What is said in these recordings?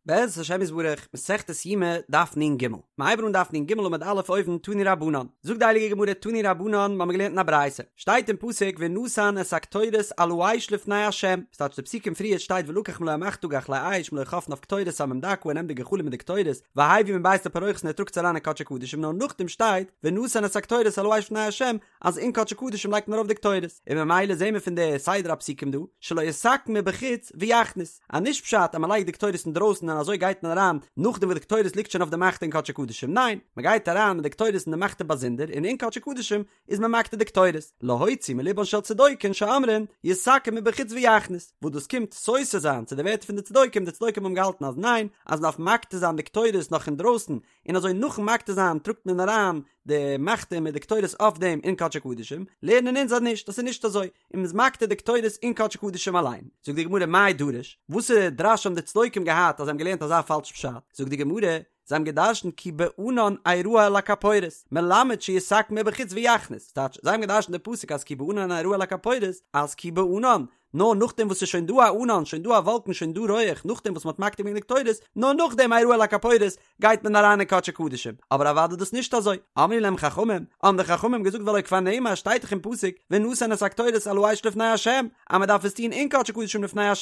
בעזרת השם יתברך, מסכת יומא, דף נ"ג. מ'הייבן אן דף נ"ג עמוד א' אויבן, תנו רבנן. זאגט די הייליגע גמרא תנו רבנן, מ'האמיר געלערנט אין א ברייתא. שטייט אין פסוק ונתן את הקטורת על האש לפני ה'. ס'טייטש די פסוקים פריערט שטייט ולקח מלא המחתה גחלי אש מלא חפניו קטורת סמים דקה ער נעמט די גחלים מיט די קטורת והביא מבית לפרוכת און ער טראגט עס אריין אין קדשי קדשים נאר נאכדעם שטייט ונתן את הקטורת על האש לפני ה' אז אין קדשי קדשים לייגט מען ארויף די קטורת, און ממילא זעהן מיר פון די סדר הפסוקים דא, שלא יתקן מבחוץ ויכניס, אז נישט פשט אז מען לייגט די קטורת אינדרויסן און אזוי גייט מען אריין נאכדעם וואס די קטורת ליגט שוין אויף די מחתה אין קדשי קדשים, ניין, מען גייט אריין מיט די קטורת און די מחתה באזונדער און אין קדשי קדשים איז מען מקטיר די קטורת, להוציא מלבן של צדוקים שאומרים יתקן מבחוץ ויכניס, וואס דאס קומט סותר זיין צו די ווערטער פון די צדוקים, די צדוקים האבן געהאלטן אז ניין, אז מען דארף מקטיר זיין די קטורת נאך אינדרויסן, און אזוי נאכן מקטיר זיין טראגט מען אריין די מחתה מיט די קטורת אויף דעם אין קדשי קדשים, לערנען אונז אז נישט, דאס איז נישט אזוי, און מ'איז מקטיר די קטורת אין קדשי קדשים אליין. זאגט די גמרא מאי דרוש, וואסערע דרש האבן די צדוקים געהאט אז זיי האבן געלערנט אזא פאלש פשט? זאגט די גמרא, זיי האבן געדרשנט כי בענן אראה על הכפורת, מלמד שיתקן מבחוץ ויכניס, ס'טייטש, זיי האבן געדרשנט די פסוק אז כי בענן אראה על הכפורת, אז כי בענן, נאר נאכדעם וואס ס'איז שוין דא א ענן, שוין דא א וואלקן, שוין דא רויעך, נאכדעם וואס מ'האט מקטיר געווען די קטורת, נאר נאכדעם אראה על הכפורת, גייט מען אריין אין קדשי קדשים, אבער אוודאי דאס נישט אזוי, אמרו להם חכמים, האבן די חכמים געזאגט והלא כבר נאמר שטייט דאך אין פסוק, ונתן את הקטורת על האש לפני ה', אז מען דארף עס טון אין קדשי קדשים לפני ה',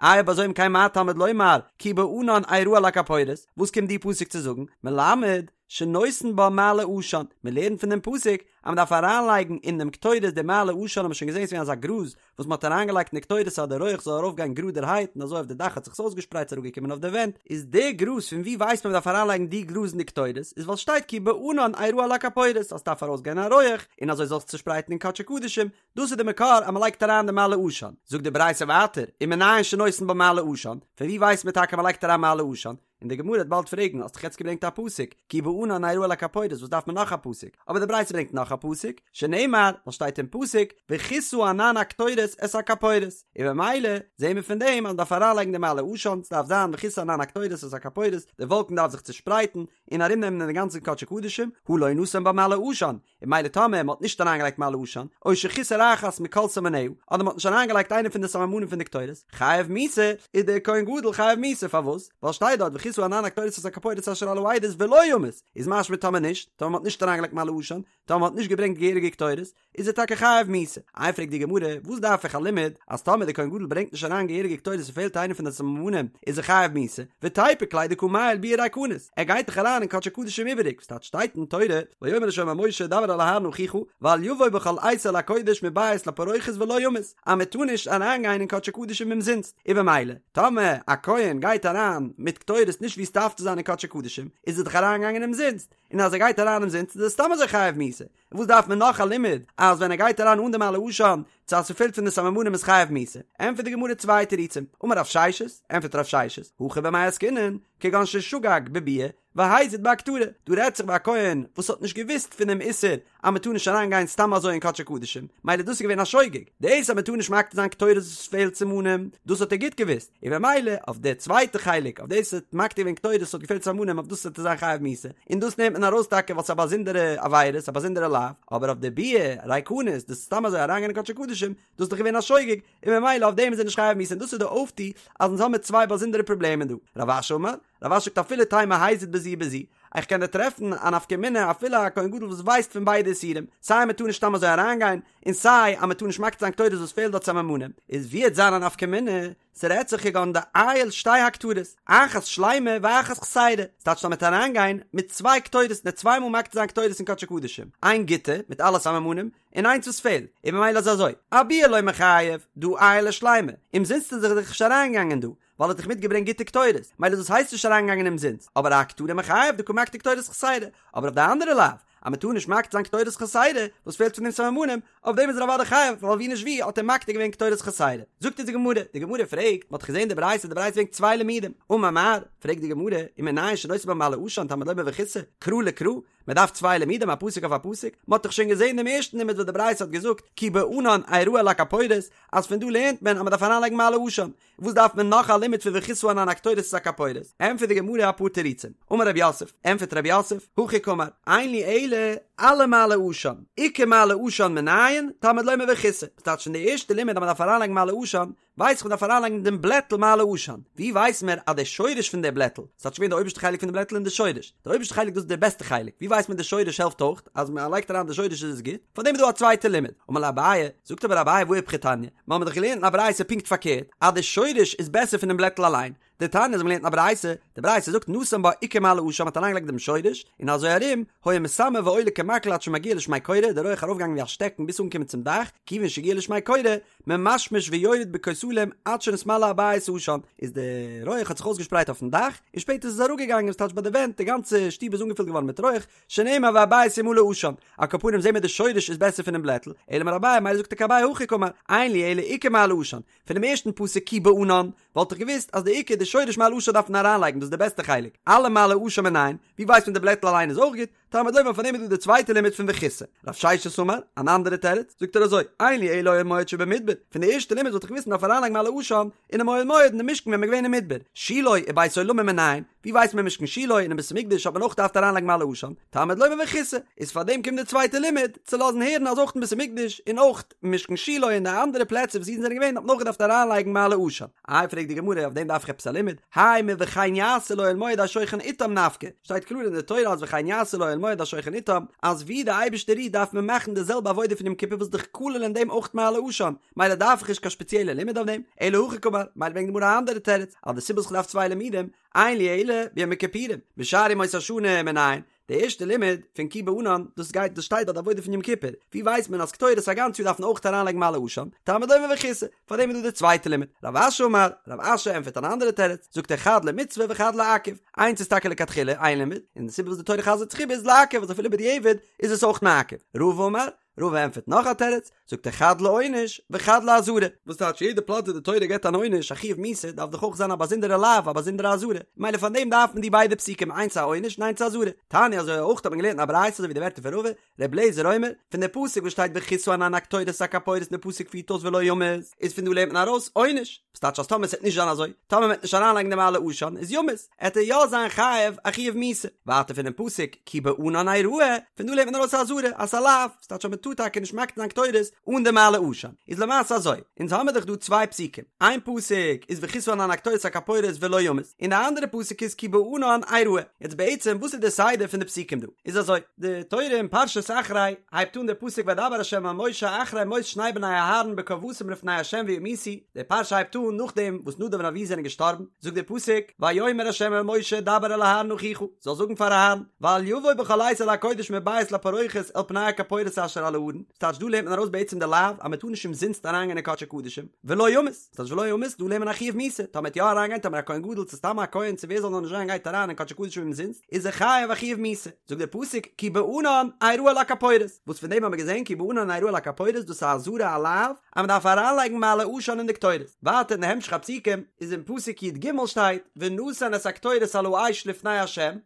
איי אויב אזוי אם כן מה תלמוד לומר, כי בענן אראה על הכפורת, וואס קומט די פסוק צו זאגן, מלמד, שנותן בה מעלה עשן, מען לערנט פון דעם פסוק אז מען דארף אריינלייגן אין דעם קטורת די מעלה עשן האבן מיר שוין געזען ס'איז געווען אזא גראז וואס מען האט אריינגעלייגט אין די קטורת אז די רויעך זאל ארויפגיין גראדערהייט און אזוי אויף די דאך האט זיך עס אויסגעשפרייט ס'איז אראפגעקומען אויף די ווענט, איז די גראז פון ווי ווייסט מען מ'דארף אריינלייגן די גראז אין די קטורת איז ווייל שטייט כי בענן אראה על הכפורת אז ס'דארף ארויסגיין א רויעך און אזוי זאל זיך צושפרייטן אין קדשי קדשים, דאס איז די מקור אז מ'לייגט אריין די מעלה עשן. זאגט די ברייתא ווייטער, ומנין שנותן בה מעלה עשן, פון ווי ווייסט מען טאקע מ'לייגט אריין מעלה עשן? און די גמרא וועט באלד פרעגן, האסט דאך יעצט געברענגט א פסוק, כי בענן אראה על הכפורת, וואס דארף מען נאך א פסוק? אבער די ברייתא ברענגט נאך א פסוק, שנאמר, וואס שטייט אין פסוק, וכסה ענן הקטורת את הכפורת, און במילא זעהן מיר פון דעם אז מען דארף אריינלייגן די מעלה עשן, ס'דארף זיין וכסה ענן הקטורת את הכפורת, די וואלקן דארף זיך צושפרייטן און ארומנעמען דעם גאנצן קדשי קדשים, הא לא נתן בה מעלה עשן, און ממילא טאמער מ'האט נישט אריינגעלייגט מעלה עשן, או שחיסר אחת מכל סממניה, אדער מ'האט נישט אריינגעלייגט איינע פון די סממנים פון די קטורת, חייב מיתה, איז דער כהן גדול חייב מיתה, פארוואס? ווייל שטייט דארט וכסה ענן הקטורת את הכפורת אשר על העדות ולא ימות, איז משמע טאמער נישט, טאמער מ'האט נישט אריינגעלייגט מעלה עשן, טאמער מ'האט נישט געברענגט געהעריגע קטורת, איז ער טאקע חייב מיתה. איי פרעגט די גמרא, וואס דארף איך א לימוד אז טאמער דער כהן גדול ברענגט נישט אריין געהעריגע קטורת און פעלט איינע פון די סממנים, איז ער חייב מיתה, ותיפוק ליה דקא מעייל ביאה ריקנית, ער גייט דאך אריין אין קדשי קדשים איבעריג, וואס טייטש שטייט אין תורה, ויאמר ה' אל משה דבר אל אהרן אחיך, ואל יבוא בכל עת אל הקודש מבית לפרוכת ולא ימות, אז מען טאר נישט אריין גיין אין קדשי קדשים אומזינסט, און במילא, טאמער א כהן גייט אריין מיט קטורת נישט ווי עס דארף צו זיין אין קדשי קדשים, איז ער דאך אריין געגאנגען אומזינסט, און אז ער גייט אריין אומזינסט איז ער סתם אזוי חייב מיתה, וואס דארף מען נאך א לימוד אז ווען ער גייט אריין אן די מעלה עשן צו אז ס'פעלט פון די סממנים איז חייב מיתה? ענטפערט די גמרא צוויי תירוצים, אמר רב ששת, ענטפערט רב ששת, הכא במאי עסקינן, כגון ששגג בביאה והזיד בהקטרה, דא רעדט זיך ביי א כהן וואס האט נישט געוואוסט פונעם איסור אז מ'טאר נישט אריין גיין סתם אזוי אין קדשי קדשים, מילא דאס איז געווען א שוגג, דאס אז מ'טאר נישט מקטיר זיין קטורת וואס פעלט סימנים, דאס האט ער גוט געוואוסט, און במילא אויף די צווייטע חלק אויף דאס האט מקטיר געווען קטורת וואס האט געפעלט סממנים אויף דאס וועט ער זיין חייב מיתה און דאס נעמט מען ארויס טאקע ווייל ס'איז א באזונדערע עבירה ס'איז א באזונדערע לאו אבער אויף די ביאה ריקנית דאס איז סתם אזוי אריינגיין אין קדשי קדשים דאס איז דאך געווען א שוגג און במילא אויף דעם איז ער נישט חייב מיתה און דאס איז די אויפטו אז אונז האמיר צוויי באזונדערע פראבלעמען דא רב אשי אמר רב אשי זאגט אפילו תימא הזיד בזו ובזו איך קען דיר טרעפן א נפקא מינה אפילו א כהן גדול וואס ווייסט פון ביידע איסורים סיי מ'טאר נישט סתם אזוי אריינגיין און סיי אז מ'טאר נישט מקטיר זיין קטורת וואס פעלט דארט סממנים, איז ווי וועט זיין א נפקא מינה, ס'רעדט זיך כגון דעייל שתי הקטרות, אחת שלימה ואחת חסירה, ס'טייטש אז מ'וועט אריינגיין מיט צוויי קטורת און צוויי מאל מקטיר זיין קטורת אין קדשי קדשים, איין גוטע מיט אלע סממנים, און איינס וואס פעלט, און ממילא איז אזוי, אביאה לא מיחייב, דהא עייל אשלימה, אומזינסט איז ער דאך נישט אריינגעגאנגען דא, ווייל ער האט דאך מיטגעברענגט גוטע קטורת, מילא דאס הייסט נישט אריינגעגאנגען אומזינסט, אבער אהקטרה מיחייב דקא מקטיר קטורת חסירה, אבער אויף די אנדערע לאו, אז מען טאר נישט מקטיר זיין קטורת חסירה, וואס פעלט פון דעם סממנים, אויף דעם איז ער אוודאי חייב, ווייל ווי נישט ווי האט ער מקטיר געווען קטורת חסירה. זאגט אונז די גמרא, די גמרא פרעגט, מען האט געזען די ברייתא, די ברייתא ברענגט צוויי לימודים, אמר מר, פרעגט די גמרא, ומנין שנותן בה מעלה עשן תלמוד לומר וכסה, קרא לקרא, מען דארף צוויי לימודים א פסוק אויף א פסוק, מען האט דאך שוין געזען דעם ערשטן לימוד וואס די ברייתא האט געזאגט, כי בענן אראה על הכפורת, אז פון דא לערנט מען אז מען דארף אריינלייגן מעלה עשן, וואס דארף מען נאך א לימוד פון וכסה ענן הקטורת את הכפורת? ענטפערט די גמרא אפאר תירוצים. אמר רב יוסף, ענטפערט רב יוסף, הכי קאמר, אין לי אלא אלע מעלה עשן, איכא מעלה עשן מנין, תלמוד לומר וכסה. ס'טייטש פון די ערשטע לימוד אז מ'דארף אריינלייגן מעלה עשן, ווייס איך מ'דארף אריינלייגן דעם בלעטל מעלה עשן, ווי ווייס מיר אז די שורש פון די בלעטל, ס'טייטש געווען די אויבערשטע חלק פון די בלעטל און די שורש, די אויבערשטע חלק דאס איז די בעסטע חלק, ווי ווייסט מען די שורש העלפט אויך, אז מען לייגט אריין די שורש איז עס גוט, פאר דעם איז דא א צווייטע לימוד, אמר ליה אביי, זאגט אבער אביי והא איפכא תניא, מיר האבן דאך געלערנט אין א ברייתא פונקט פארקערט, אז די שורש איז בעסער פונעם בלעטל אליין, דתניא אזוי האבן מיר געלערנט אין א ברייתא, די ברייתא זאגט נתן בה עיקר מעלה עשן מ'האט אריינגעלייגט דעם שורש, און אזוי ארום, היה מסמר ועולה כמקל עד שמגיע לשמי קורה, די רויעך ארויפגעגאנגען ווי א שטעקן ביז אנגעקומען צום דאך, כיוון שהגיע לשמי קורה, ממשמש ויורד בכותלים עד שנתמלא הבית עשן, איז די רויעך האט זיך אויסגעשפרייט אויפן דאך, און שפעטער איז עס אראפגעגאנגען ס'טייטש ביי די ווענט, די גאנצע שטוב איז אנגעפילט געווארן מיט רויעך, שנאמר והבית ימלא עשן, על כל פנים זעהן מיר די שורש איז בעסער פונעם בלעטל, אלא אמר אביי מילא זאגט טאקע אביי הכי קאמר, אין לי אלא עיקר מעלה עשן, פונעם ערשטן פסוק כי בענן, וואלט איך געוואוסט אז די עיקר די שורש מעלה עשן דארף מען אריינלייגן דאס איז די בעסטע חלק, עלה מעלה עשן מנין, ווי ווייסט מען די בלעטל אליין איז אויך גוט, תלמוד לומר פאר דעם איז דא די צווייטע לימוד פון וכסה. רב ששת אמר, אן אנדערע תירוץ, זאגט ער אזוי, אין לי אלא אוהל מועד שבמדבר, פון די ערשטע לימוד וואלט איך געוואוסט מען דארף אריינלייגן מעלה עשן אינעם אוהל מועד אין די משכן ווען מען איז געווען אין מדבר, שילה ובית עולמים מנין, ווי ווייסט מען משכן שילה און אין בית המקדש האט מען אויך געדארפט אריינלייגן מעלה עשן, תלמוד לומר וכסה, איז פאר דעם קומט די צווייטע לימוד, צו לאזן הערן אז אויך אין בית המקדש און אויך משכן שילה און די אנדערע פלעצער וואס אידן זענען געווען האט מען אויך געדארפט אריינלייגן מעלה עשן. איי פרעגט די גמרא אויף דעם דארף איך עפעס א לימוד? האי מוכן יעשו לאוהל מועד השוכן אתם נפקא, שטייט קלאר אין די תורה אז וכן יעשו לאוהל מועד השוכן אתם, אז ווי די אייבערשטער רוהט דארף מען מאכן די זעלבע עבודה פון יום כיפור וואס דאך כולל אין דעם אויך מעלה עשן, מילא דארף איך נישט קיין שפעציעלע לימוד אויף דעם, אלא הכי קאמר, מילא ברענגט די גמרא א אנדערע תירוץ, אז די סיבה וואס כ'דארף צוויי לימודים, אין לי אלא ביום הכיפורים, בשאר ימות השנה מנין, די ערשטע לימוד פון כי בענן, דאס גייט דאס שטייט ביי די עבודה פון יום כיפור, ווי ווייסט מען אז קטורת א גאנץ יאר דארף מען אויך אריינלייגן מעלה עשן, תלמוד לומר וכסה, פארדעם איז דא די צווייטע לימוד. רב אשי אמר, רב אשי ענטפערט אן אנדערע תירוץ, זאגט ער חד למצוה וחד לעכב, איינס איז טאקע לכתחילה איין לימוד, און די סיבה וואס די תורה חזר'ט זיך איבער איז לעכב אז אפילו בדיעבד איז עס אויך מעכב. רבא אמר, רבא ענטפערט נאך א תירוץ, זאגט ער חד לעונש וחד לאזהרה, וואס טייטש יעדע פלאץ ווי די תורה געבט אן עונש א חיוב מיתה דארף דאך אויך זיין א באזונדערע לאו א באזונדערע אזהרה, מילא פאר דעם דארף מען די ביידע פסוקים איינס א עונש און איינס א אזהרה. תניא אזוי אויך האט מען געלערנט אין א ברייתא אזוי ווי די ווערטער פון רבא, ר' אליעזר אומר, פון די פסוק וואס שטייט וכסה ענן הקטורת את הכפורת און די פסוק פירט אויס ולא ימות, איז פון דא לערנט מען ארויס עונש, וואס טייטש אז טאמער ס'עט נישט זיין אזוי, טאמער מ'עט נישט אריינלייגן די מעלה עשן איז ימות, עט ער יא זיין חייב א חיוב מיתה. ווייטער פונעם פסוק כי בענן אראה, פון דא לערנט מען ארויס א אזהרה אז ס'איז א לאו, ס'טייטש אז מ'טאר טאקע נישט מקטיר זיין קטורת אן די מעלה עשן. איז למעשה אזוי, אונז האמיר דאך דא צוויי פסוקים, איין פסוק איז וכסה ענן הקטורת את הכפורת ולא ימות, און די אנדערע פסוק איז כי בענן אראה. יעצט בעצם וואס איז די סדר פון די פסוקים דא? איז אזוי, די תורה אין פרשת אחרי הייבט אן די פסוק וידבר ה' אל משה אחרי מות שני בני אהרן בקרבתם לפני ה' וימותו, די פרשה הייבט אן נאכדעם וואס נדב און אביהוא זענען געשטארבן, זאגט דער פסוק, ויאמר ה' אל משה דבר אל אהרן אחיך, זאל זאגן פאר אהרן, ואל יבוא בכל עת אל הקודש מבית לפרוכת אל פני הכפורת אשר על הארון, ס'טייטש דא לערנט מען ארויס בעצם די לאו אז מען טאר נישט אומזינסט אריינגיין אין קדשי קדשים, ולא ימות, ס'טייטש ולא ימות, דא לערנט מען א חיוב מיתה, טאמער וועט יא אריינגיין טאמער א כהן גדול צו סתם א כהן צו ווער זאל נאר נישט זיין גייט אריין אין קדשי קדשים אומזינסט, איז ער חייב א חיוב מיתה, זאגט דער פסוק כי בענן אראה על הכפורת, וואס פון דעם האבן מיר געזען כי בענן אראה על הכפורת דאס איז א אזהרה א לאו אז מען דארף אריינלייגן מעלה עשן אין די קטורת, ווייטער אין די המשך הפסוקים איז אין פסוק י"ג שטייט ונתן את הקטורת על האש לפני ה'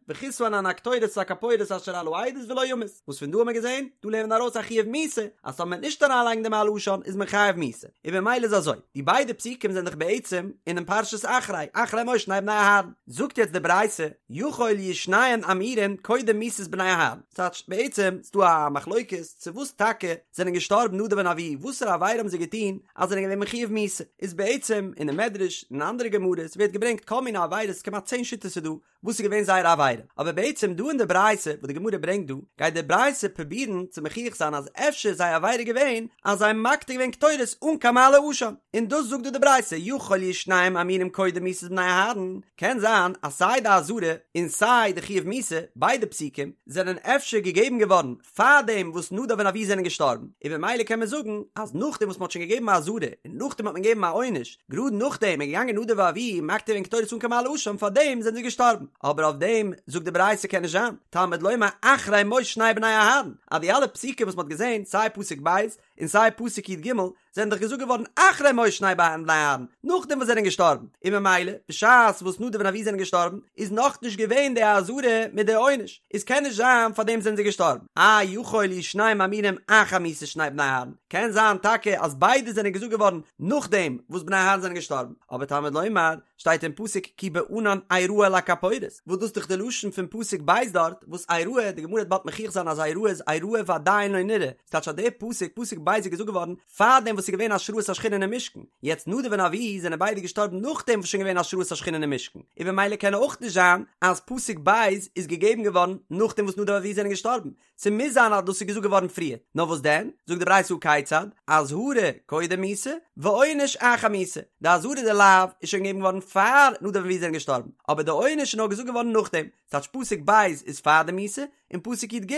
וכסה ענן הקטורת את הכפורת אשר על העדות ולא ימות, וואס פון דא האבן מיר געזען, דא לערנט מען ארויס א חיוב מיתה, אז טאמער מען וועט נישט אריינלייגן די מעלה עשן איז מען חייב מיתה, און במילא איז אזוי, די ביידע פסוקים זענען דאך בעצם אינעם פרשת אחרי, אחרי מות שני בני אהרן. זאגט יעצט די ברייתא, יכול יהו שניהם אמורין קודם מיתת בני אהרן, ס'טייטש בעצם ס'דא א מחלוקת צו וואס טאקע זענען געשטארבן נדב און אביהוא, וואסערע עבירה האבן זיי געטון אז זענען געווען מחויב מיתה, איז בעצם אינעם מדרש און אנדערע גמרות ווערט געברענגט כל מיני עבירות כמעט צען שיטות איז דא וואס איז געווען זייער עבירה, אבער בעצם דא אין די ברייתא וואס די גמרא ברענגט דא, גייט די ברייתא פרובירן צו מוכיח זיין אז אפשר איז זייער עבירה געווען אז זיי האבן מקטיר געווען קטורת אן קיין מעלה עשן, און דאס זאגט דא די ברייתא יכול יהו שניהם אמורים קודם מיתת בני אהרן, קען זיין אז סיי די אזהרה און סיי די חיוב מיתה, ביידע פסוקים, זענען אפשר געגעבן געווארן פארדעם וואס נדב און אביהוא זענען געשטארבן, און במילא קען מען זאגן אז נאכדעם וואס מען האט שוין געגעבן א אזהרה און נאכדעם האט מען געגעבן א עונש, גראד נאכדעם איז געגאנגען נדב ואביהוא מקטיר געווען קטורת אן קיין מעלה עשן פארדעם זענען זיי געשטארבן, אבער אויף דעם זאגט די ברייתא קען נישט זיין, תלמוד לומר אחרי מות שני בני אהרן, אז די אלע פסוקים וואס מען האט געזען סיי פסוק ב' און סיי פסוק י"ג זענען דאך געזאגט געווארן אחרי מות שני בני אהרן, נאכדעם וואס זיי זענען געשטארבן, און ממילא בשעת וואס נדב און אביהוא זענען געשטארבן איז נאכנישט געווען די אזהרה מיט די עונש, איז קען נישט זיין פארדעם זענען זיי געשטארבן, איי יכול יהו שניהם אמורים אחר מיתת שני בני אהרן, קען זיין טאקע אז ביידע זענען געזאגט געווארן נאכדעם וואס בני אהרן זענען געשטארבן, אבער תלמוד לומר שטייט אין פסוק כי בענן אראה על הכפורת, וואס דאס איז דאך די לשון פון פסוק ב' דארט, וואס אראה, די גמרא וועט באלד מוכיח זיין אז אראה איז אראה ועדיין לא נראה, ס'טייטש אז דער פסוק, פסוק ב'. ב' איז געזאגט געווארן פארדעם וואס ס'איז געווען השראת השכינה אינעם משכן, יעצט נדב און אביהוא זענען ביידע געשטארבן נאכדעם וואס שוין געווען השראת השכינה אינעם משכן, און במילא קען אויך נישט זיין אז פסוק ב' איז געגעבן געווארן נאכדעם וואס נדב ואביהוא זענען געשטארבן, ס'מוז זיין אז דאס איז געזאגט געווארן פריער, נאר וואס דען, זאגט די ברייתא הא כיצד, אזהרה קודם מיתה, ועונש אחר מיתה, די אזהרה די לאו איז שוין געגעבן געווארן פאר נדב ואביהוא זענען געשטארבן, אבער די עונש איז נאר געזאגט געווארן נאכדעם, ס'טייטש פסוק ב' איז פאר די מיתה, און פסוק י"ג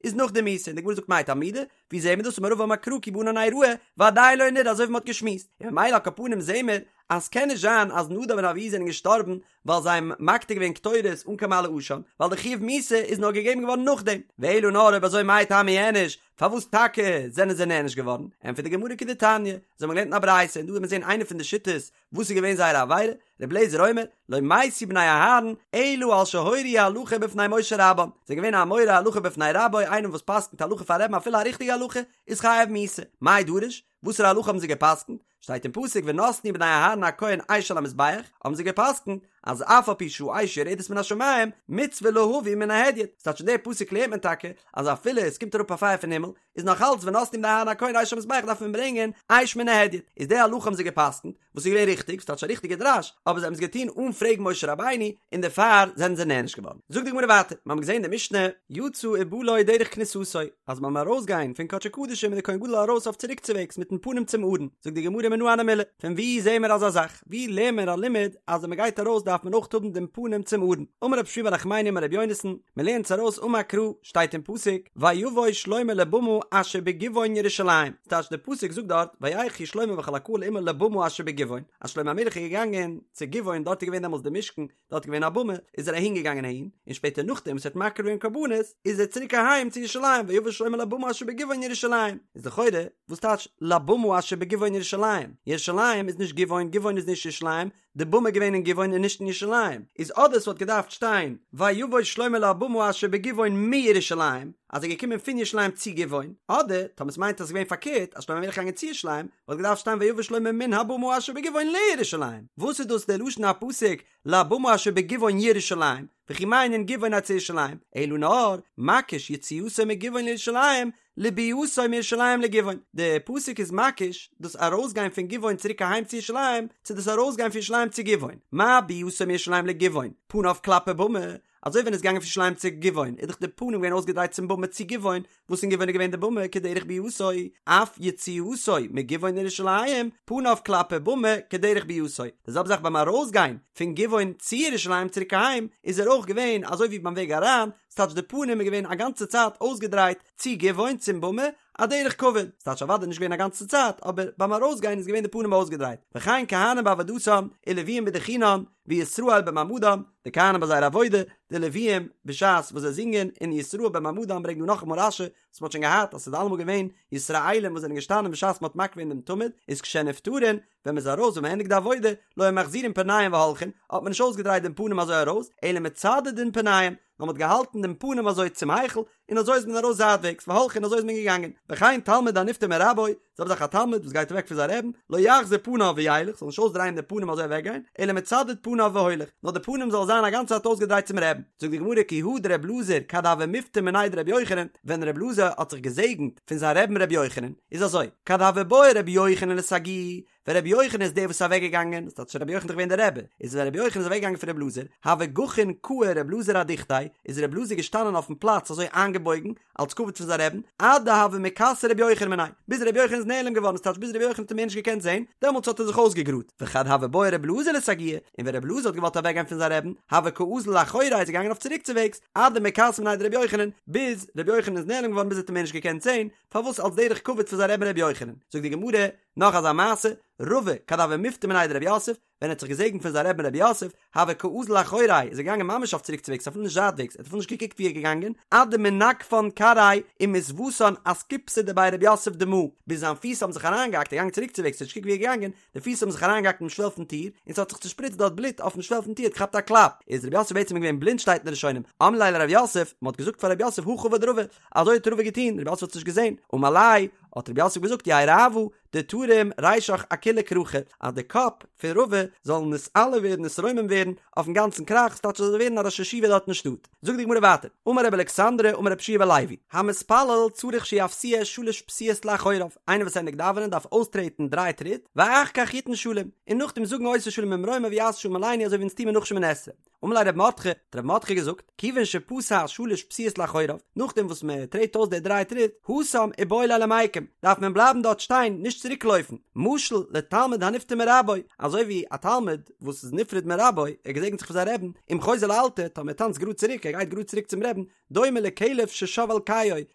איז נאך די מיתה, און די גמרא זאגט מאי תלמודא, ווי זעהן מיר דאס אמר רבא אמר קרא כי בענן אראה ועדיין לא נראה אזוי ווי מ'האט געשמועסט, און ממילא על כל פנים זעהן מיר אז ס'קען נישט זיין אז נדב און אביהוא זענען געשטארבן ווייל זיי האבן מקטיר געווען קטורת אן קיין מעלה עשן, ווייל די חיוב מיתה איז נאר געגעבן געווארן נאכדעם, ואלא נאר אויב אזוי מאי טעמא איענוש, פארוואס טאקע זענען זיי נענש געווארן? ענטפערט די גמרא כדתניא, אזוי האבן מיר געלערנט אין א ברייתא, און דא וועט מען זעהן איינע פון די שיטות וואס איז געווען זייער עבירה, ר' אליעזר אומר, לא מתו בני אהרן, אלא על שהורו הלכה בפני משה רבם, זיי זענען געווען א מורה הלכה בפני רבו, איינער וואס פסק'נט הלכה פאר רבי'ן אפילו א ריכטיגע הלכה, איז חייב מיתה. מאי דרוש? וואסערע הלכה האבן זיי געפסק'נט? שטייט אין פסוק ונתנו בני אהרן הכהן אש על המזבח, האבן זיי געפסק'נט אז אף על פי שהאש יורדת מן השמים, מצוה להביא מן ההדיוט, ס'טייטש אין די פסוק לערנט מען טאקע אז אפילו עס קומט אראפ א פייער פון הימל, איז נאך אלץ ונתנו בני אהרן הכהן אש על המזבח דארף מען ברענגען אש מן ההדיוט, איז די הלכה האבן זיי געפסקנט, וואס איז געווען ריכטיג, ס'טייטש א ריכטיגע דרש, אבער זיי האבן עס געטון אן פרעגן משה רבינו, און דערפאר זענען זיי נענש געווארן. זאגט די גמרא ווייטער, מיר האבן געזען די משנה, יצא ובא לו דרך כניסתו, אז ביים ארויסגיין פון קדשי קדשים איז דער כהן גדול ארויס אויף צוריקצוועגס מיטן פנים צום ארון, זאגט די גמרא מנא הני מילי, פון וואו זעען מיר אזא זאך? ווי לערנט מען א לימוד אז ווען מען גייט ארויס דארף מען אויך האבן דעם פנים צום ארון? אמר רב שמואל בר נחמני אמר רבי יונתן, מען לערנט עס ארויס אמר קרא, שטייט אין פסוק, ויבא שלמה לבמה אשר בגבעון ירושלים, ס'טייטש דער פסוק זאגט דארט, וילכו שלמה וכל הקהל עמו לבמה אשר בגבעון, אז שלמה המלך איז געגאנגען צו גבעון, דארט איז געווען דעמאלטס די משכן, דארט איז געווען א במה, איז ער אהין געגאנגען אהין, און שפעטער נאכדעם וואס ער האט מקריב געווען קרבנות, איז ער צוריק אהיים צו ירושלים, ויבא שלמה לבמה אשר בגבעון ירושלים, איז לכאורה, וואס טייטש לבמה אשר בגבעון ירושלים? ירושלים איז נישט גבעון, גבעון איז נישט ירושלים, די במה איז געווען אין גבעון און נישט אין ירושלים, איז אדער ס'וואלט געדארפט שטיין ויבא שלמה לבמה אשר בגבעון מירושלים, אז ער איז געקומען פון ירושלים צו גבעון, אדער טאמער ס'מיינט אז ס'איז געווען פארקערט אז שלמה המלך איז געגאנגען צו ירושלים, וואלט געדארפט שטיין ויבא שלמה מן הבמה אשר בגבעון לירושלים. וואס איז דאס דער לשון הפסוק לבמה אשר בגבעון ירושלים, וכי מה ענין גבעון אצל ירושלים, אלא נאר, מקיש יציאתו מגבעון לירושלים, לביאתו מירושלים לגבעון, די פסוק איז מקיש דאס ארויסגיין פון גבעון צוריק אהיים צו ירושלים, צו דאס ארויסגיין פון ירושלים צו גבעון, מה ביאתו מירושלים לגבעון, פניו כלפי במה, אזוי ווען ער איז געגאנגען פון ירושלים צו גבעון איז דאך די פנים געווען אויסגעדרייט צום במה צו גבעון, וואס אין גבעון איז געווען די במה כדרך ביאתו, אף יציאתו מגבעון לירושלים, פניו כלפי במה כדרך ביאתו, די זעלבע זאך ביים ארויסגיין פון גבעון צו ירושלים צוריק אהיים, איז ער אויך געווען אזוי ווי ביים וועג אריין, ס'טייטש די פנים איז געווען א גאנצע צייט אויסגעדרייט צו גבעון צום במה, א דרך כבוד, ס'טייטש אוודאי נישט געווען א גאנצע צייט, אבער ביים ארויסגיין איז געווען די פנים אויסגעדרייט, וכן כהנים בעבודתם, ולוויים בדוכנן, וישראל במעמדם, די כהנים ביי זייער עבודה, די לוויים בשעת וואס זיי זינגען, און ישראל במעמדם ברענגט דא נאכאמאל רש"י, וואס מ'האט שוין געהאט אז ס'איז אלעמאל געווען ישראלים וואס זענען געשטאנען בשעת מ'האט מקריב געווען דעם תמיד, איז כשנפטרין, ווען מ'איז ארויס ווען מ'ענדיגט די עבודה, לא היו מחזירין פניהם והולכין, האט מען נישט אויסגעדרייט דעם פנים אזוי ארויס, אלא מצדדין פניהם, נאר מ'האט געהאלטן דעם פנים אזוי צום היכל, און אזוי איז מען ארויס זייטוועגס, והולכין אזוי איז מען געגאנגען, וכן תלמיד הנפטר מרבו, זעלבע זאך א תלמיד וואס גייט אוועק פון זיין רעבן, לא יחזיר פניו וילך, זאל נישט אויסדרייען דעם פנים אזוי אוועקגיין, אלא מצדד פניו והולך, נאר די פנים זאל זיין א גאנצע צייט אויסגעדרייט צום רעבן. זאגט די גמרא כי הא דר' אלעזר כד הוה מפטר מיניה דר' יוחנן, ווען ר' אלעזר האט זיך געזעגנט פון זיין רעבן ר' יוחנן, איז אזוי, כד הוה בעי ר' יוחנן לסגויי, ווען רבי יוחנן איז דער וואס איז אוועק געגאנגען, דאס טייטש רבי יוחנן איז דאך געווען דער רבי, איז ווען רבי יוחנן איז אוועק געגאנגען פון רבי אלעזר, הוה גחין קאי רבי אלעזר אדוכתיה, איז רבי אלעזר געשטאנען אויפן פלאץ אזוי איינגעבויגן, אלס כבוד פון זיין רעבן, עד דהוה מיכסי רבי יוחנן מיניה, ביז רבי יוחנן איז נעלם געווארן, ס'טייטש ביז רבי יוחנן האט אים מער נישט געקענט זען, דעמאלטס האט ער זיך אויסגעגראדט, וכד הוה בעי רבי אלעזר לסגויי, און ווען רבי אלעזר האט געוואלט אוועק גיין פון זיין רעבן, הוה קאזיל לאחוריה איז ער געגאנגען אויף צוריקצוועגס, עד דמיכסי מיניה דרבי יוחנן, ביז רבי יוחנן איז נעלם געווארן ביז ער האט אים מער נישט געקענט זען, פארוואס אלס דרך כבוד פון זיין רעבן רבי יוחנן, זאגט די גמרא, נאך אזא מעשה, רבא, כד הוה מפטר מיניה דרב יוסף, ווען ער האט זיך געזעגנט פון זיין רעבן רב יוסף, הוה קאזיל לאחוריה, איז ער געגאנגען ממש אויף צוריקצוועגס אפילו נישט זייטוועגס, ער האט אפילו נישט געקוקט ווי ער איז געגאנגען, עד דמנגפן כרעיה ומתוותן אסקופתא דבי רב יוסף דמא, ביז זיין פיס האבן זיך אריינגעהאקט, ער איז געגאנגען צוריקצוועגס, ער האט נישט געקוקט ווי ער איז געגאנגען, די פיס האבן זיך אריינגעהאקט אינעם שוועל פון טיר, און ס'האט זיך צושפריצט דארט בלוט אויפן שוועל פון טיר, האט געכאפט א קלאפ, איז רב יוסף בעצם געווען בלינד שטייט אין די ראשונים, אמרו ליה לרב יוסף, מ'האט געזאגט פאר רב יוסף הכי עבד רבא, אזוי האט רבא געטון, רב יוסף האט עס נישט געזען, אמר ליה, האט רב יוסף געזאגט יהא רעוא, דתרים רישך אכולא כרכא, אז די קאפ פון רבא זאל נתעלה ווערן נתרומם ווערן אויפן גאנצן כרך, ס'טייטש ער זאל ווערן א ראש ישיבה דארט אין שטאט. זאגט די גמרא ווייטער, אמר רבי אלכסנדרי אמר רבי יהושע בן לוי, המתפלל צריך שיפסיע שלש פסיעות לאחוריו, איינער וואס ענדיגט דאווענען דארף אויסטרעטן דריי טריט, ואחר כך יתן שלום, און נאכדעם זאגן עושה שלום במרומיו הוא יעשה שלום עלינו אזוי ווי אונז טוען מיר נאך שמונה עשרה. אמר ליה רב מרדכי, האט רב מרדכי געזאגט, כיוון שפסע שלש פסיעות לאחוריו, נאכדעם וואס מען טרעט אויס די דריי טריט, התם איבעי ליה למיקם, דארף מען בלייבן דארט שטיין, נישט צוריק לויפן, משל לתלמיד הנפטר מרבו, אזוי ווי א תלמיד וואס איז נפרד מרבו, ער געזעגנט זיך פון זיין רעבן, אם חוזר לאלתר, טאמער ער טאנצט גראד צוריק, ער גייט גראד צוריק צום רעבן, דומה לכלב ששב על קיאו, איז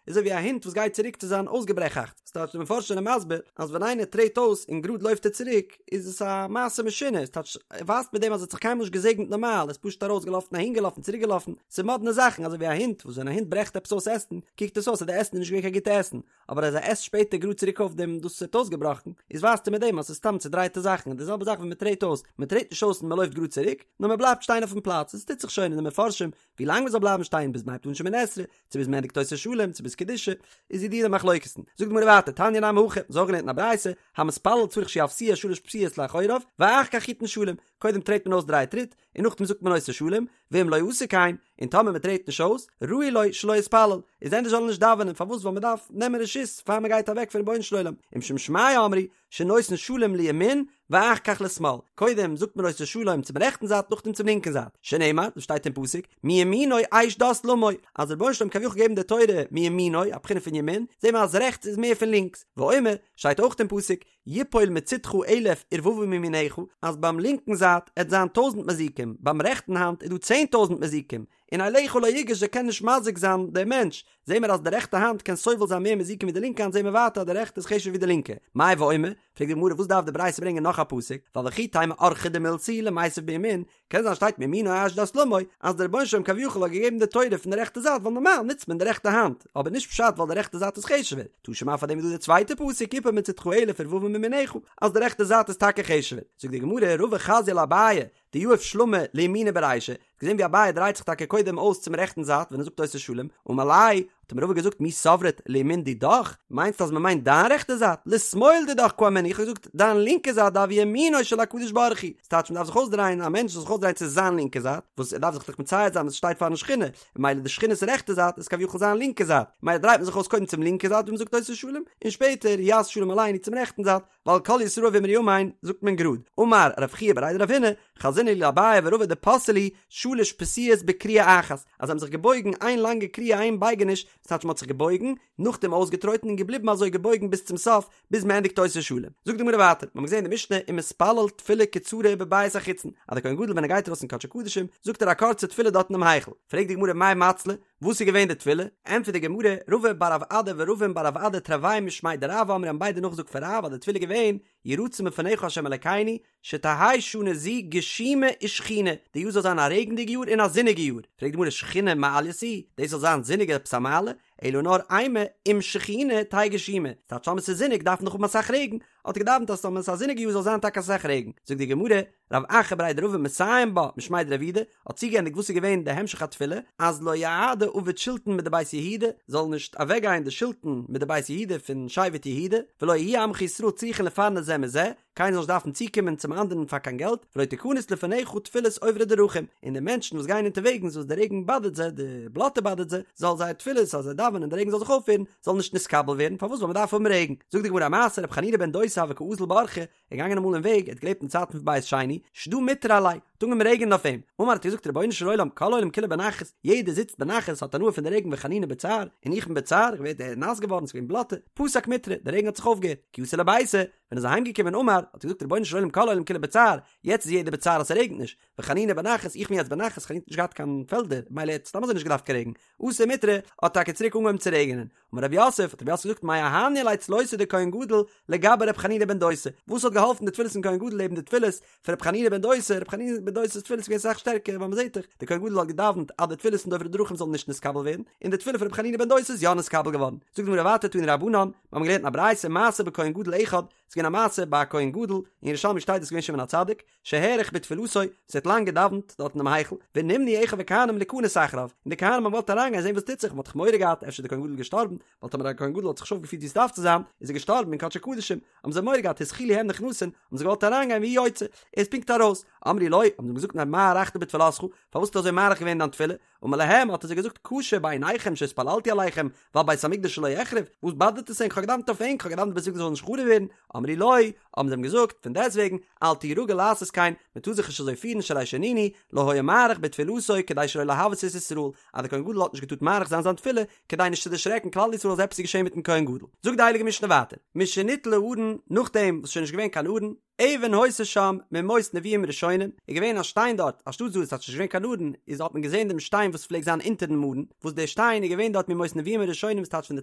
אזוי ווי א הונט וואס גייט צוריק צו זיין אויסגעברעכאכטס, ס'טייטש די מפרשים זענען מסביר אז ווען איינער טרעט אויס און גראד לויפט ער צוריק איז עס א מעשה משונה, ס'טייטש ער ווייזט מיט דעם אז ער האט זיך קיינמאל נישט געזעגנט נארמאל, ער איז פשוט ארויסגעלאפן אהינגעלאפן צוריקגעלאפן, ס'איז מאדנע זאכן, אזוי ווי א הונט וואס ווען א הונט ברעכט עפעס אויס עסן קוקט עס אויס אז די עסן איז נישט געווען קיין גוטע עסן, אבער אז ער עסט שפעטער גראד צוריק אויף דעם דאס וואס ער האט אויסגעבראכן, איז ווייזט ער מיט דעם אז ס'איז סתם צודרייטע זאכן, און די זעלבע זאך ווען מ'טרעט אויס, מ'טרעט נישט אויס און מ'לויפט גראד צוריק, נאר מ'בלייבט שטיין אויפן פלאץ, עס טוט זיך שוין אין די מפרשים ווי לאנג מ'זאל בלייבן שטיין ביז מ'הייבט אן שמונה עשרה, צו ביז מ'ענדיגט עושה שלום, צו ביז קדושה, איז ידוע די מחלוקת'ן. זאגט די גמרא ווייטער, תניא נמי הכי, מ'האט אויך געלערנט אין א ברייתא, המתפלל צריך שיפסיע שלש פסיעות לאחוריו, ואחר כך יתן שלום, קודם טרעט מען אויס דריי טריט, און נאכדעם זאגט מען עושה שלום, ואם לא עשה כן, און טאמער מ'טרעט נישט אויס, ראוי לו שלא יתפלל, איז ענדערש זאל ער נישט דאווענען, פארוואס ווייל מ'דארף נעמען רשות פאר מ'גייט אוועק פון רבונו של עולם, ומשום שמעיה אמרו, שנותן שלום לימין ואחר כך לשמאל, קודם זאגט מען עושה שלום צום רעכטן זייט נאכדעם צום לינקן זייט, שנאמר, דאס שטייט אין פסוק, מימינו אש דת למו, אז דער רבונו של עולם כביכול געגעבן די תורה מימינו, א בחינה פון ימין, זעהן מיר אז רעכטס איז מער פון לינקס, ואומר, שטייט אויך אין פסוק, יפול מצדך אלף ורבבה מימינך, אז ביים לינקן זייט עט זיין טויזנט מזיקים, ביים רעכטן האנט איז דא 10,000 מזיקים, און אליך לא יגש זיי קען נישט מזיק זיין דער מענטש, זעהן מיר אז די רעכטע האנט קען סובל זיין מער מזיקים ווי די לינקע האנט זעהן מיר ווייטער אז די רעכטע איז חשוב'ער ווי די לינקע, מאי ואומר, פרעגט די גמרא וואס דארף די ברייתא ברענגען נאך א פסוק, ווייל וכי תימא אורחא דמילתא הוא למיתב בימין, קען זיין שטייט מימינו אש דת למו, אז דער רבונו של עולם כביכול האט געגעבן די תורה פון די רעכטע זייט ווייל נארמאל נוצט מען די רעכטע האנט, אבער נישט פשט ווייל די רעכטע זייט איז חשוב'ער, תא שמע פאר דעם איז דא די צווייטע פסוק יפול מצדך אלף ורבבה מימינך, אז די רעכטע זייט איז טאקע חשוב'ער, זאגט די גמרא רבא חזייה לאביי, דיהיב שלמא לימיניה ברישא, האט געזען ווי אביי דרייט זיך טאקע קודם אויס צום רעכטן זייט ווען ער זאגט עושה שלום, אמר ליה, האט אים רבא געזאגט מי סברת לימין דידך, מיינסט אז מען מיינט דיין רעכטע זייט, לשמאל דידך קאמינא, איך האב געזאגט דיין לינקע זייט דהוי ימינו של הקדוש ברוך הוא, ס'טייטש מען דארף זיך אויסדרייען, א מענטש זאל זיך אויסדרייען צו זיין לינקע זייט, וואס ער דארף זיך דאך מצייר זיין וואס שטייט פארן שכינה, ממילא די שכינה'ס רעכטע זייט איז כביכול זיין לינקע זייט, ממילא דרייט מען זיך אויס קודם צום לינקע זייט ווי מען זאגט עושה שלום, און שפעטער יעשה שלום עלינו צום רעכטן זייט, ווייל כל ישראל ואמרו אמן זאגט מען גראד, אמר רב חייא בריה דרב הונא, חזינא להו לאביי ורבא דפסעי להו שלש פסיעות בכריעה אחת, אז זיי האבן זיך געבויגן איין לאנגע כריעה איין בייגעניש, דאס טייטש מען האט זיך געבויגן, נאכדעם אויסגעטרויטן און געבליבן אזוי געבויגן ביז צום סוף, ביז מען ענדיגט עושה שלום. זאגט די גמרא ווייטער, מיר האבן געזען אין די משנה ומתפלל תפילה קצרה בבית החיצון, אז דער כהן גדול ווען ער גייט ארויס אין קדשי קדשים, זאגט ער א קורצע תפילה דארט אינעם היכל, פרעגט די גמרא מאי מצלי, וואס איז געווען די תפילה? ענטפערט די גמרא, רבא בר רב אדא ורבין בר רב אדא תרוייהו משמיה דרב אמרי האבן ביידע נאכגעזאגט פון רב אז די תפילה איז געווען, יהי רצון מלפניך ה' אלקינו, שתהא שנה זו גשומה ושחונה, די יאר זאל זיין א רעגנדיגע יאר און א זוניגע יאר, פרעגט די גמרא שחונה מעלייתא היא, דאס זאל זיין זוניג איז עפעס א מעלה? אלא נאר אימא אם שחונה תהא גשומה, ס'טייטש טאמער ס'איז זוניג דארף מען דאך האבן אסאך רעגן, האט ער געדאווענט אז טאמער ס'איז א זוניגע יאר זאל זיין טאקע אסאך רעגן, זאגט די גמרא, רב אחא בריה דרבא מסיים בה משמיה דרב יהודה, האט צוגעענדיגט וואס איז געווען די המשך התפילה, אז לא יעדי עביד שולטן מדבית יהודה, זאל נישט אוועקגיין די שלטון מדבית יהודה פון שבט יהודה, ולא יהיו עמך ישראל צריכין לפרנס זה מזה, קיינער זאל נישט דארפן צוקומען צום אנדערן פאר קיין געלט, ולא תכנס לפניך תפילת עוברי דרכים, און די מענטשן וואס גייען אונטערוועגנס וואס די רעגן באדערט זיי, די בלאטע באדערט זיי, זאל זייער תפילות אז זיי דאווענען און די רעגן זאל זיך אויפהערן, זאל נישט נתקבל ווערן, פארוואס ווייל מען דארף האבן רעגן. זאגט די גמרא א מעשה, רבי חנינא בן דוסא הוה קא אזיל באורחא, ער איז געגאנגען אמאל אין וועג, ער האט געלעבט אין צייטן פון בית שני, שדא מיטרא עליה, האט אנגעהויבן רעגענען אויף אים, אמר האט ער געזאגט רבונו של עולם כל העולם כולו בנחת, יעדער זיצט בנחת האט הנאה פון די רעגן וחנינא בצער, און איך בין בצער, איך ווער נאס געווארן, ס'איז געווען בלאטע, פסק מיטרא, די רעגן האט זיך אויפגעהערט, כי אתא לביתיה, ווען ער איז אהיים געקומען אמר, האט ער געזאגט רבונו של עולם כל העולם כולו בצער, יעצט איז יעדער בצער אז ס'רעגנט נישט, וחנינא בנחת, איך בין יעצט בנחת, חנינא האט נישט געהאט קיין פעלדער, מילא ער האט סתם אזוי נישט געדארפט קיין רעגן, אתא מיטרא, האט טאקע צוריק אנגעהויבן צו רעגענען. אמר רב יוסף, האט רב יוסף געזאגט מאי אהניא ליה צלותיה דכהן גדול לגבי ר' חנינא בן דוסא, וואס האט געהאלפן די תפילות פון כהן גדול לעבן די תפילות פון ר' חנינא בן דוסא, ר' חנינא בן דוסא'ס תפילות איז געווען אסאך שטערקער ווייל מ'זעט דאך, דער כהן גדול האט געדאווענט אז די תפילות פון די עוברי דרכים זאלן נישט נתקבל ווערן, און די תפילה פון ר' חנינא בן דוסא איז יא נתקבל געווארן. זאגט די גמרא ווייטער תנו רבנן, מיר האבן געלערנט אין א ברייתא מעשה בכהן גדול אחד, ס'איז געווען א מעשה ביי א כהן גדול, אין ירושלמי שטייט דאס איז געווען שמעון הצדיק, שהאריך בתפילתו, וואס ער האט לאנג געדאווענט דארט אינעם היכל, ונמנעו אחיו הכהנים ליכנס אחריו, און די כהנים האבן געוואלט אריינגיין זען וואס טוט זיך, מען האט דאך מורא געהאט אפשר איז דער כהן גדול געשטארבן, ווייל טאמער א כהן גדול האט זיך נישט אויפגעפירט ווי עס דארף צו זיין, איז ער געשטארבן אין קדשי קדשים, האבן זיי מורא געהאט התחילו הם נכנסין, האבן זיי געוואלט אריינגיין והוא יוצא, ער איז פונקט ארויס, אמרו לו, האבן זיי אים געזאגט מה הארכת בתפילתך, פארוואס האסטו אזוי מאריך געווען אין דיין תפילה, אמר להם, האט ער זיי געזאגט, קשה בעיניכם שהתפללתי עליכם, ועל בית המקדש שלא יחרב, וואס באדערט עס ענק, כ'האב געדאוונט אויף ענק, כ'האב געדאוונט בית המקדש זאל נישט חרוב ווערן, אמרו לו, האבן זיי אים געזאגט, פון דעסטוועגן, אל תהי רגיל לעשות כן, מען טאר זיך נישט אזוי פירן שהרי שנינו, לא היה מאריך בתפילתו כדי שלא להבהות את ישראל, אז דער כהן גדול האט נישט געטארט מאריך זיין זיין תפילה, כדי נישט צו דערשרעקן כלל ישראל אז עפעס איז געשען מיטן כהן גדול. זאגט די הייליגע משנה ווייטער, משניטל הארון, נאכדעם וואס ס'איז שוין נישט געווען קיין ארון, אבן היתה שם מימות נביאים ראשונים, איז געווען א שטיין דארט, אנשטאט דאס אז ס'איז נישט געווען קיין ארון, איז האט מען געזען דעם שטיין וואס פלעגט זיין אונטערן ארון, וואס דער שטיין איז געווען דארט מימות נביאים הראשונים וואס טייטש פון די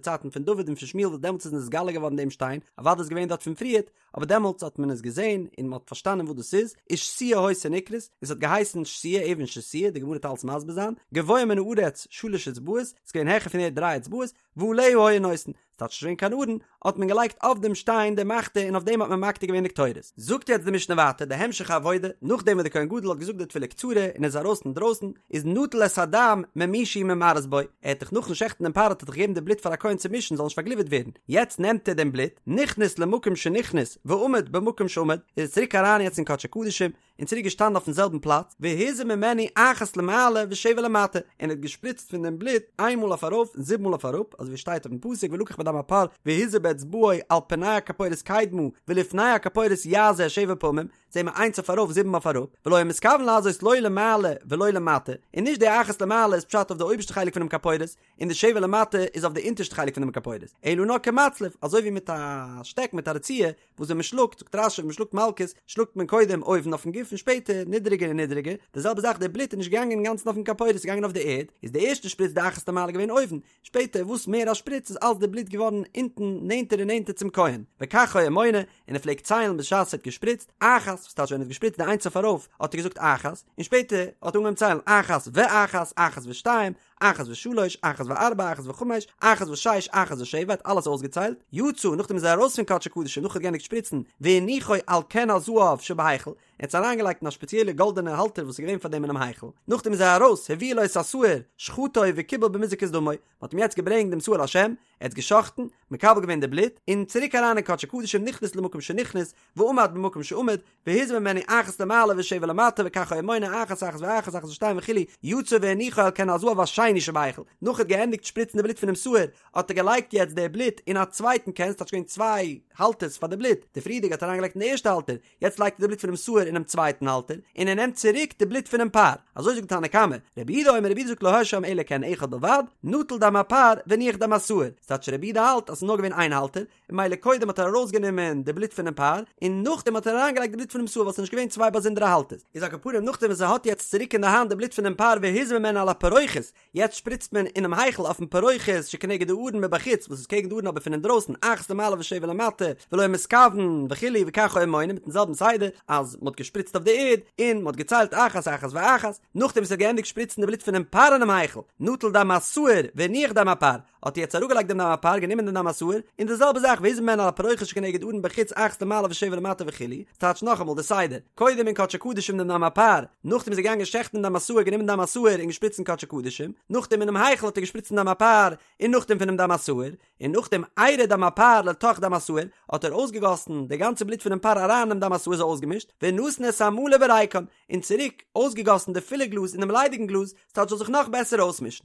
צייטן פון דוד און פון שמואל וואס דעמאלטס איז נתגלה געווארן דעם שטיין, אוודאי איז געווען דארט פון פריערט, אבער דעמאלטס האט מען עס געזען און מען האט פארשטאנען וואס דאס איז, ושתייה היתה נקראת, און ס'האט געהייסן שתייה, אבן שתייה, די גמרא וועט אלס מסביר זיין, גבוה מן הארץ שלש אצבעות, ס'איז געווען העכער פון ערד דריי אצבעות, ועליה היו נושאין, ס'טייטש נישט געווען קיין ארון, האט מען געלייגט אויף דעם שטיין די מחתה און אויף דעם האט מען מקטיר געווען די קטורת. זאגט יעצט די משנה ווייטער די המשך העבודה, נאכדעם וואס די כהן גדול האט געזאגט די תפילה קצרה און איז ארויס אינדרויסן, איז נטל את הדם ממי שהוא ממרס בו, ער האט דאך נאכן שעכטן דעם פר האט ער דאך געגעבן די בלוט פאר א כהן צו מישן זאל נישט פארגליווערט ווערן, יעצט נעמט ער דעם בלוט, נכנס למקום שנכנס ועמד במקום שעמד, איז ער צוריק אריין יעצט אין קדשי קדשים, און צוריק געשטאנען אויפן זעלבן פלאץ, והזה ממנו אחת למעלה ושבע למטה, און ער האט געשפריצט פון דעם בלוט איין מאל אויף ארויף און זיבן מאל אויף אראפ, אזוי ווי שטייט אויפן פסוק ולקח מדם הפר והזה באצבעו על פני הכפורת קדמה ולפני הכפורת יזה שבע פעמים, זעהן מיר איינס אויף ארויף זיבן אויף אראפ, ולא היה מתכוון לזות לא למעלה ולא למטה, און נישט די אחת למעלה איז פשט אויף די אויבערשטע חלק פונעם כפורת, און די שבע למטה איז אויף די אונטערשטע חלק פונעם כפורת, אלא נאר כמצלף, אזוי ווי מיט א שטעק מיט א רצועה, וואס ווען מען שלאגט, זאגט רש"י ווען מען שלאגט מלקות, שלאגט מען קודם אויבן אויפן גוף און שפעטער נידעריגער און נידעריגער, די זעלבע זאך די בלוט איז נישט געגאנגען אינגאנצן אויפן כפורת ס'איז געגאנגען אויף די ערד, איז די ערשטע שפריץ די אחת למעלה געווען אויבן, שפעטער וואס מער א שפריץ איז אלץ די בלוט געווארן אונטן נענטער און נענטער צום כהן, וכך היה מונה, און ער פלעגט ציילן בשעת ער האט געשפריצט, אחת, וואס טייטש ווען ער האט געשפריצט די איינס אויף ארויף האט ער געזאגט אחת, און שפעטער האט ער אנגעהויבן ציילן אחת ואחת, אחת ושתיים, אחת ושלש, אחת וארבע, אחת וחמש, אחת ושש, אחת ושבע, האט אלעס אויסגעציילט, יצא, נאכדעם איז ער ארויס פון קדשי קדשים נאך ער האט געענדיגט שפריצן, והניחו על כן הזהב שבהיכל, ער האט עס אריינגעלייגט אין א שפעציעלע גאלדענע האלטער וואס איז געווען פאר דעם אינעם היכל, נאכדעם איז ער ארויס, הביאו לו את השעיר, שחטו וקיבל במיזוק את דמו, מען האט אים יעצט געברענגט דעם שעיר לשם, ער האט געשחטן, מקבל געווען די בלוט, און צוריק אריין אין קדשי קדשים נכנס למקום שנכנס, ועמד במקום שעמד, והזה ממנו אחת למעלה ושבע למטה וכך היה מונה אחת אחת ואחת אחת ושתיים וכו' יצא והניחו על כן הזהב השני שבהיכל נאך ער האט געענדיגט שפריצן די בלוט פונעם שעיר האט ער געלייגט יעצט די בלוט אין א צווייטן כן ס'טייטש געווען צוויי האלטערס פאר די בלוט די פריערדיגע האט ער אריינגעלייגט אין די ערשטע האלטער יעצט לייגט ער די בלוט פונעם שעיר אינעם צווייטן האלטער און ער נעמט צוריק די בלוט פונעם פר אזוי זאגט תנא קמא רבי יהודה אומר רבי יהודה זאגט לא היה שם אלא כן אחד בלבד נטל דם הפר והניח דם השעיר ס'טייטש רבי יהודה האלט אז ס'איז נאר געווען איין האלטער און ממילא קודם האט ער ארויסגענומען די בלוט פונעם פר, און נאכדעם האט ער אריינגעלייגט די בלוט פונעם שעיר ווייל ס'איז נישט געווען צוויי באזונדערע האלטערס. איז על כל פנים נאכדעם וואס ער האט יעצט צוריק אין די האנט די בלוט פונעם פר והזה ממנו על הפרוכת, יעצט שפריצט מען אינעם היכל אויפן פרוכת שכנגד הארון מבחוץ וואס איז קעגן די ארון אבער פון אינדרויסן אחת למעלה ושבע למטה ולא היה מתכוון וכו' וכך היה מונה מיטן זעלבן סדר אז מ'האט געשפריצט אויף די ערד און מ'האט געציילט אחת אחת ואחת, נאכדעם וואס ער האט געענדיגט שפריצן די בלוט פונעם פר אינעם היכל, נטל דם השעיר והניח דם הפר, האט ער יעצט אראפגעלייגט דעם דם הפר, גענומען דעם דם השעיר, און די זעלבע זאך והזה ממנו על הפרוכת שכנגד הארון בחוץ אחת למעלה ושבע למטה וכו', ס'טייטש נאכאמאל די סדר, קודם אין קדשי קדשים דעם דם הפר, נאכדעם איז ער געגאנגען שעכטן דם השעיר גענומען דם השעיר און געשפריצט אין קדשי קדשים, נאכדעם אינעם היכל האט ער געשפריצט דם הפר, און נאכדעם פונעם דם השעיר, און נאכדעם עירה דם הפר לתוך דם השעיר, האט ער אויסגעגאסן די גאנצע בלוט פונעם פר אריין אינעם דם השעיר אזוי אויסגעמישט, ונתן את המלא בריקן, און צוריק אויסגעגאסן די פולע גלאז אינעם ליידיגן גלאז, ס'טייטש זאל זיך נאך בעסער אויסמישן.